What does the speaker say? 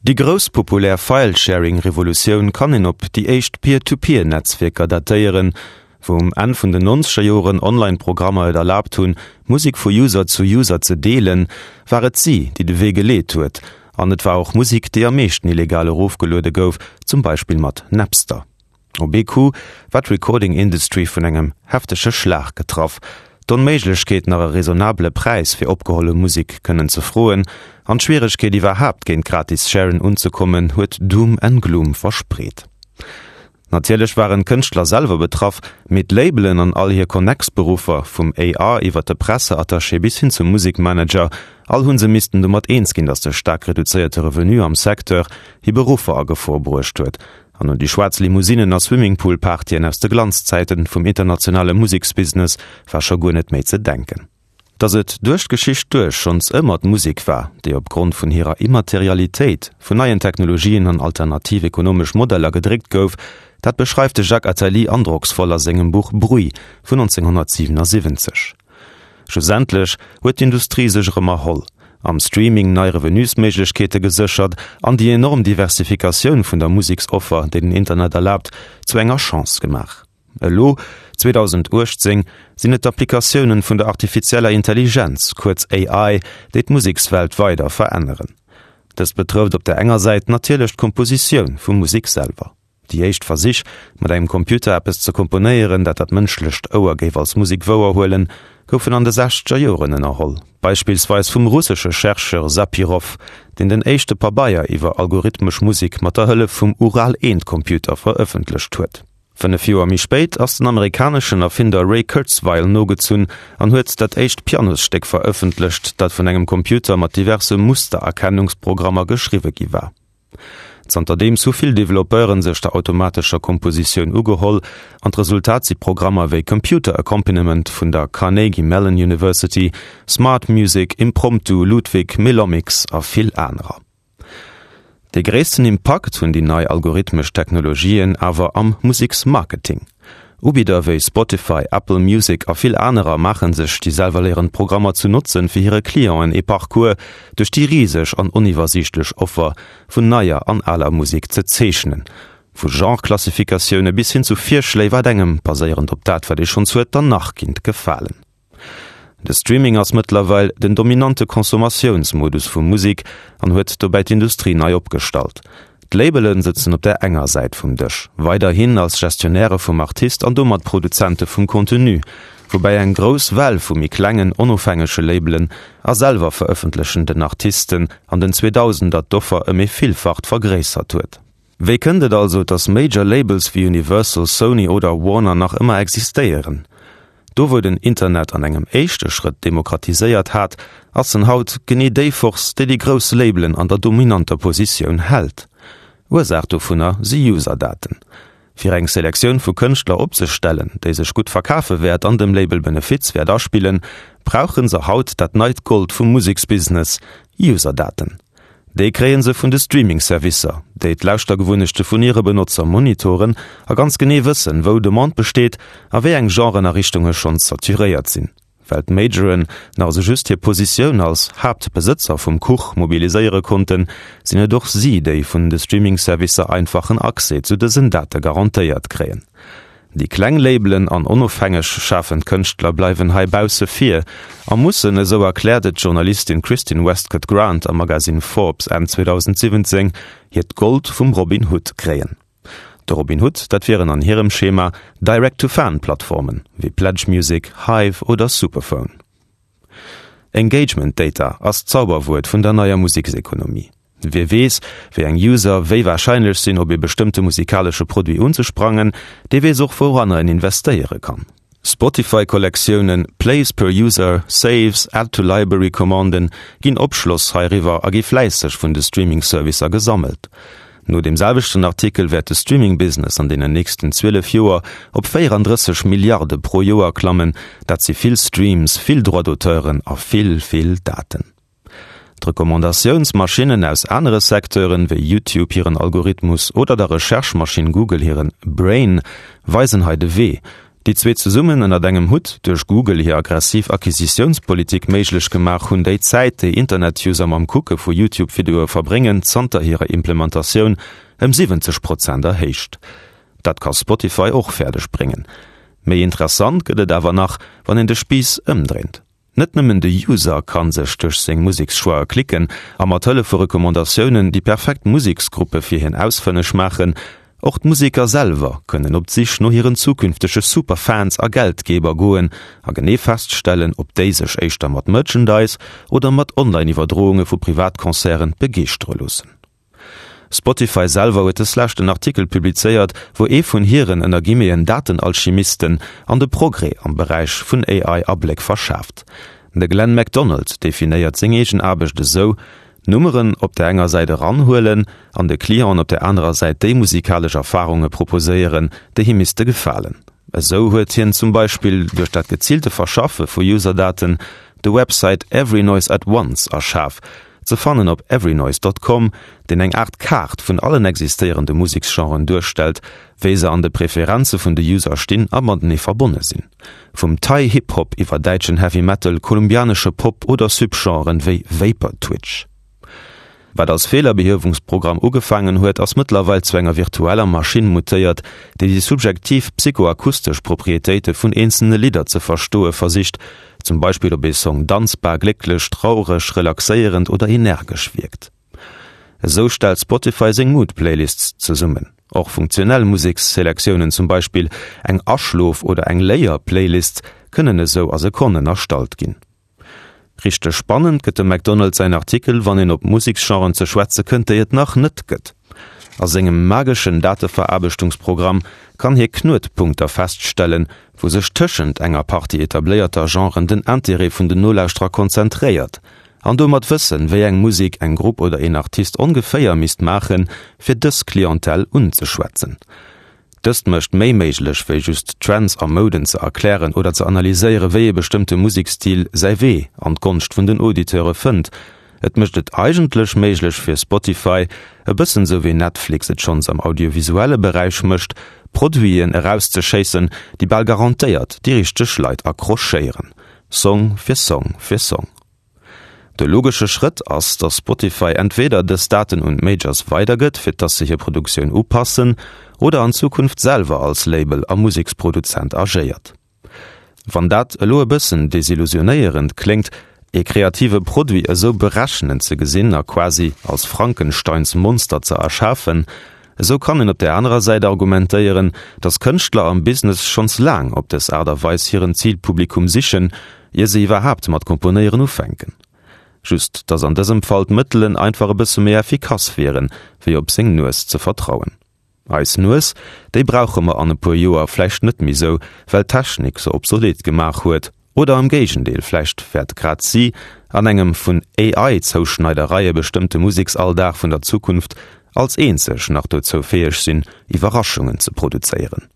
Déi grouss populär File-Sharing-Revolutioun kann een op déi éischt Peer-to-Peer-Netzwierker datéieren, wou um Enn vun den nonzeger Joren Online-Programmer et erlaabt hunn, Musek vu User zu User ze deelen, war et si, déi de Wee geleet huet. An et war och Musek, déi am meeschten illegal erofgeluede gouf, zum Beispill mat Napster. Op ee Coup war d'Recording Industry vun engem heftege Schlag getraff. D'Onméiglechkeet nach e raisonnabele Präis fir opgeholle Musek kënnen ze froen an d'Schwieregkeet iwwerhaapt géint gratis Sharen unzekommen huet Doom and Gloom verspreet. Natierlech waren d'Kënschtler selwer betraff, mee d'Labelen an all hir Connex-Beruffer, vum AR iwwer de Presseattaché bis hin zum Musekmanager, all hu se missten domat eens ginn, datt de staark reduzéierte Revenu am Secteur hir Beruffer a Gefor bruecht huet. An un déi schwaarz Limousinnen a Swimmingpool-Partyen aus de Glanzzäiten vum internationale Museksbusiness war scho guer net méi ze denken. Datt et duerch d'Geschicht duerch schonns ëmmer d'Musek war, déi op Grond vun hirer Immaterialitéit vun neien Technologien an alternativ ekonomesch Modeller gedréckt gouf, dat beschreift de Jacques Attali androcksvoll a sengem Buch Bruit vun 1977. Schlussendlech huet d'Industrie sech erëm erholl, am Streaming nei Revenusméiglechkeete geséchert an déi enorm Diversifikatioun vun der Museksoffer, déi den Internet erlaabt, zu enger Chance gemaach. Elo, 2018, sinn et d'Applikatiounen vun der artifizieller Intelligenz, kuerz AI, déi d'Musekswelt weider veränneren. Dëst betrëfft op der enger Säit natierlech d'Kompositioun vu Musek selwer. Déi éischt Versich, mat engem Computer eppes ze komponéieren, dat dat mënschlecht Ouer géif als Musek wouerhuelen, goufen an de sechzeger Joren ënnerholl, beispillsweis vum russesche Chercheur Sapirov, deen den éischte Pabeier iwwer algorithmesch Musek mat der Hëllef vum Ural-I-Computer verëffentlecht huet. 5 Joer méi spéit ass den amerikaneschen Erfinder Ray Kurzweil nogezunn an huet dat éischt Pianosstéck verëffentlecht, dat vun engem Computer mat diverse Mustererkennungsprogrammer geschriwwe gi war. Zanterdeems hu vill Developpeuren sech der automatescher Kompositioun ugeholl, an d'Resultat si Programmer wéi Computer Accompaniment vun der Carnegie Mellon University, Smart Music, Impromptu, Ludwig, Melomics a vill anerer. Dee gréissten Impakt hunn déi nei algorithmesch Technologien awer am Museksmarketing. Ubidder wéi Spotify, Apple Music a vill anerer maache sech déi selwerléierend Programmer zu Notzen, fir hire Clienten ee Parcours duerch déi riseg an oniwwersiichtlech Offer vun neier an aler Musek ze zeechnen. Vu Genre-Klassifikatioune bis hin zu Virschléi, wat engem, baséierend op dat, wat ee schonns huet, dann nach kinnt gefalen. De Streaming ass mëttlerweil den dominante Consommatiounsmodus vu Musek an huet dobäi d'Industrie nei opgestallt. D'Labele sëtzen op där enger Säit vum Dësch, weiderhin als Gestionnairë vum Artist an domat Produzente vum Contenu, woubäi eng grouss Well vu méi klengen, onofhängege Labelen a selwer verëffentlechenden Artisten an den Zweedausender d'Offer ëm ee Villfacht vergréissert huet. Wéi kënnt et also, dass Major Labels wéi Universal, Sony oder Warner nach ëmmer existéieren? Do wou den Internet an engem éischte Schrëtt demokratiséiert hat, ass en haut genee déi Force, déi déi grouss Labelen an der dominanter Positioun hält. Ursaach dovunner si User-Daten. Fir eng Selektioun vu Kënschtler opzestellen, déi sech gutt verkafe wäert an dem Label Benefiz wäert aspillen, brauche se haut dat neit Gold vum Museksbusiness, User-Daten. Déi kréie se vun de Streaming-Servicer, déi d'Lauschtergewunnechte vun hire Benotzer monitoren a ganz genee wëssen, wou Demande besteet a wéi eng Genren a Richtunge schonns saturéiert sinn. Well d'Majoren nach esou just hir Positioun als Haaptbesëtzer vum Kuch mobiliséiere konnten, sinn et och si, déi vun de Streaming-Servicer einfachen Accès zu dësen Date garantéiert kréien. Déi kleng Labelen an onofhängeg schafend Kënschtler bleiwen hei bausse vir a mussen, esou erkläert et d'Journalistin Kristin Westcott Grant am Magasinn Forbes Enn 2017, hiert Gold vum Robin Hood kréien. De Robin Hood, dat wieren an hirem Schema Direct-to-Fan-Plattformen, wéi Pledge Music, Hive oder Superphone. Engagement Data ass d'Zauberwuert vun der neier Museksekonomie. Wie weess, wéi eng User wéi warscheinlech sinn, op ee bestëmmte musikalesche Produit unzesprangen, dee weess och, wouranner en investéiere kann. Spotify-Kollektiounen, Plays per User, Saves, Add to Library-Commanden ginn Opschloss heiriwwer a gi fläisseg vun de Streaming-Servicer gesammelt. No deem selwechten Artikel wäert de Streaming-Business an deenen nächsten 12 Joer op 34 Milliarde pro Joer klammen. Dat si vill Streams, vill Droits-d'auteuren a vill, vill Daten. D'Recommandatiounsmaschinnen aus anere Secteuren, wéi YouTube hiren Algorithmus oder der Recherche-Maschinn Google hiren Brain, weisen hei de Wee. Déi zwee zesummen ënnert engem Hutt, duerch Google hir aggressiv Acquisitiounspolitik méiglech gemaach, hunn déi Zäit, déi Internet-User mam Kucke vu YouTube-Videoe verbréngen, zanter hirer Implementatioun ëm 70 Prozent erhéicht. Dat ka Spotify och fäerdeg bréngen. Méi interessant gëtt et awer nach, wann een de Spiiss ëmdréint. Net nëmmen de User kann sech duerch seng Musekschoix'e klicken a mat Hëllef vu Recommandatiounen déi perfekt Museksgruppe fir hien ausfënneg maachen, och d'Museker selwer kënnen op d'Sich no hiren zukünftege Superfans a Geldgeber goen a genee feststellen, ob déi sech éischter mat Merchandise oder mat Online-Iwwerdrounge vu Privatconcerten begeeschtere loossen. Spotify selwer huet des Lescht en Artikel publizéiert, wou ee vun hiren, ënner Guillemeten, Datenalchimisten an de Progrès am Beräich vun AI Abléck verschaaft. De Glenn MacDonald definéiert seng eegen Aarbecht esou, Nummeren op der enger Säit eranhuelen an de Clienten op der anerer Säit déi musikalesch Erfarunge proposéieren, déi him misste gefalen. Esou huet hien zum Beispill duerch dat geziilte Verschaffe vu Userdaten de Website Every Noise at Once erschaf, Ze fannen op everynoise dot com, deen eng Aart Kaart vun allen existéierende Museksgenren duerstellt, wéi se an de Preferenze vun de User stinn a matenee verbonne sinn. Vum Thai Hip Hop iwwer däitschen Heavy Metal, kolumbianesche Pop oder Subgenren wéi Vapor Twitch. Wat als Feelerbehiewungsprogramm ugefaangen huet, ass mëttlerweil zu enger virtueller Maschinn mutéiert, déi déi subjektiv psychoakustesch Proprietéite vun eenzelne Lidder ze verstoe versicht, Zum Beispill ob ee Song danzbar, glécklech, traureg, relaxéierend oder energesch wierkt. Esou stellt Spotify seng Mood-Playlists zesummen. Och funktionell Museksselektiounen, zum Beispill eng Aschlof oder eng Léier-Playlist, kënnen esou a Sekonnen erstallt ginn. Richteg spannend gëtt dem McDonald säin Artikel, wann een op Museksgenren ze schwätze kënnt, déi et nach net gëtt. A sengem mageschen Dateveraarbechtungsprogramm kann hie Knuetpunkter feststellen, wou sech tëschent enger Partie etabléierter Genren den Interêt vun den Nolauschterer konzentréiert, an domat wëssen, wéi eng Musek eng Grupp oder een Artist ongeféier misst maachen, fir dës Clientèle unzeschwätzen. Dëst mécht méi méiglech, wéi just Trends a Mouden ze erklären oder ze analyséieren, wéi ee bestëmmte Musekstil säi Wee an d'Gonscht vun den Auditeure fënnt. Et mécht et eigentlech méiglech fir Spotify, e bëssen sou wéi Netflix et schonns am audiovisuelle Beräich mécht, Produiten erauszeschéissen, déi bal garantéiert déi richteg Leit accrochéieren, Song fir Song fir Song. De logesche Schrëtt ass, dass Spotify entweder dës Daten un d'Majors weidergëtt, fir dass se hir Produktioun upassen, oder an Zukunft selwer als Label a Museksproduzent agéiert. Wann dat elo e bëssen desillusionéierend kléngt, ee kreative Produit esou berechnend ze gesinn a quasi als Frankensteins Monster ze erschafen, esou kann een op där anerer Säit argumentéieren, datt Kënschtler am Business schonns laang op dës Aart a Weis hiren Zilpublikum sichen, ier se iwwerhaapt mat Komponéieren ufänken. Just datt an dësem Fall d'Mëttelen einfach e bësse méi effikass wieren, wéi op seng Nues ze vertrauen. Eis Nues, déi brauche mer an e puer Joer vläicht net méi sou, well d'Technik se obsolet gemaach huet. Oder am Géigendeel, vläicht wäert grad si an engem vun AI-Zouschneidereie bestëmmte Museksalldag vun der Zukunft als eenzeg nach dozou fäeg sinn, Iwwerraschungen ze produzéieren.